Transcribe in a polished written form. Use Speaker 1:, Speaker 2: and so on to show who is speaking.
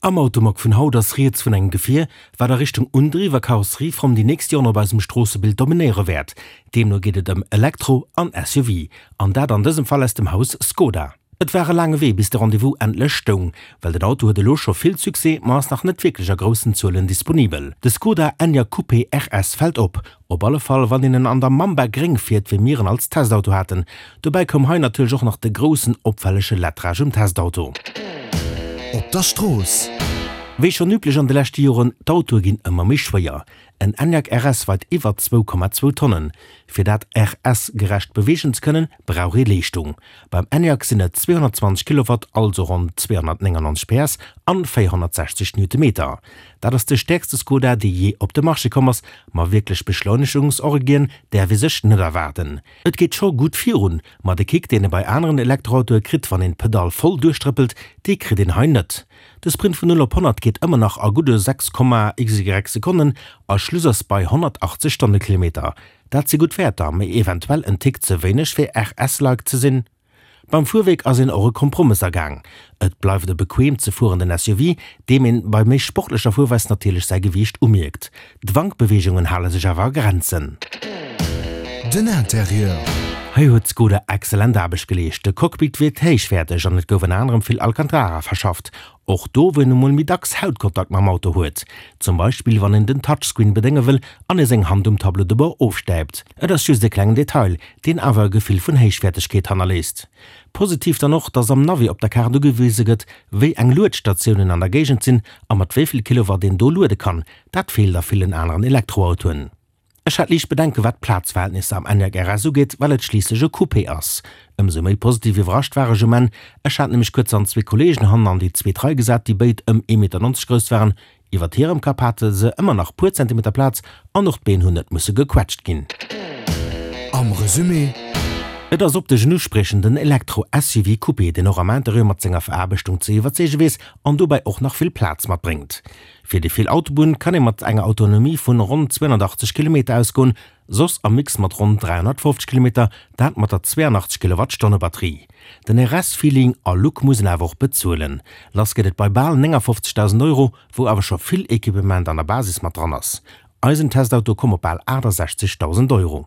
Speaker 1: Am Automag vun haut ass rieds vun engem Gefier, wat a Richtung Undriw a Karosserieform déi nächst Joren op eisem Stroossebild dominéiere wäert. Deemno geet et ëm Elektro an SUV, an dat an dësem Fall aus dem Haus Skoda. Et war e laange Wee bis de Rendez-vous endlech stoung, well den Auto huet elo scho vill Succès, ma ass nach net wierklech a groussen Zuelen disponibel. De Skoda Enyaq Coupé RS fält op, op alle Fall wann een en an der Mamba Gréng fiert, wéi mir en als Testauto haten. Dobäi koum hei natierlech och nach de groussen opfällege Lettrage um Testauto.
Speaker 2: Op der Strooss.
Speaker 1: Wéi schonn üblech an de leschte Joren, d'Autoe ginn ëmmer méi schwéier. En Enyaq RS weit iwwer 2,2 Tonnen. Fir dat RS gerecht beweegen ze kënnen, brauch ee Leeschtung. Beim Enyaq sinn et 220 Kilowatt, also ronn 299 PS an 460 Newtonmeter. Dat ass de stäerkste Skoda, dee jee op de Marché komm ass, ma wierklech Beschleunegungsorgien däerf ee sech net erwaarden. Et geet scho gutt virun, ma de Kick, deen ee bei aneren Elektroautoe kritt, wann een d'Pedall voll duerchtrëppelt, dee kritt een hei net. De Sprint vun 0 op 100 geet ëmmer nach a gudde 6, xy Sekonnen a Schluss ass bei 180 Stonnekilometer. Dat si gutt Wäerter, mee eventuell en Tick ze wéineg fir RS-like ze sinn. Beim Fuerwierk ass een och e Kompromëss agaang. Et bleift e bequeem ze fuerenden SUV, deem een bei méi sportlecher Fuerweis natierlech säi Gewiicht umierkt. D'Wankbeweegungen hale sech awer a Grenzen.
Speaker 2: Den Interieur.
Speaker 1: Hei huet Skoda excellent Aarbecht geleescht. De Cockpit wierkt héichwäerteg an et gouf ënner anerem vill Alcantara verschafft. Och do, wou een emol méi dacks Hautkontakt mam Auto huet. Zum Beispill wann een den Touchscreen bedénge wëll an ee seng Hand um Tableau de bord ofstäipt. Et ass just e klengen Detail, deen awer e Gefill vun Héichwäertegkeet hannerléisst. Positiv dann och, dass am Navi op der Kaart ugewise gëtt, wéi eng Luedstatiounen an der Géigend sinn a mat wéi vill Kilowatt een do luede kann. Dat feelt a villen aneren Elektroautoen. Ech hat liicht Bedenke wat d'Plazverhältnisser am Enyaq RS ugeet, well et schliisslech e Coupé ass. Ëmsou méi positiv iwwerrascht war ech um Enn. Ech hat nämlech kuerz an zwee Kolleegen hannen an déi zweet Rei gesat, déi béid ëm ee Meter 90 grouss waren. Iwwert hirem Kapp hate se ëmmer nach puer Zentimeter Plaz an och d'Been hunn net musse gequetscht ginn.
Speaker 2: Am Resumé.
Speaker 1: Et ass optesch en uspriechenden Elektro-SUV Coupé, deen och am Interieur mat senger Veraarbechtung ze iwwerzeege weess an dobäi och nach vill Plaz matbréngt. Fir déi vill Autobunn kann ee mat enger Autonomie vun ronn 280 Kilometer ausgoen, soss am Mix mat ronn 350 Kilometer, dat mat der 82 Kilowattstonne Batterie. Den RS-Feeling a Look muss een awer och bezuelen. Lass geet et bei bal 59.000 Euro, wou awer scho vill Equipement an der Basis mat dran ass. Eisen Testauto koum op bal 68.000 Euro.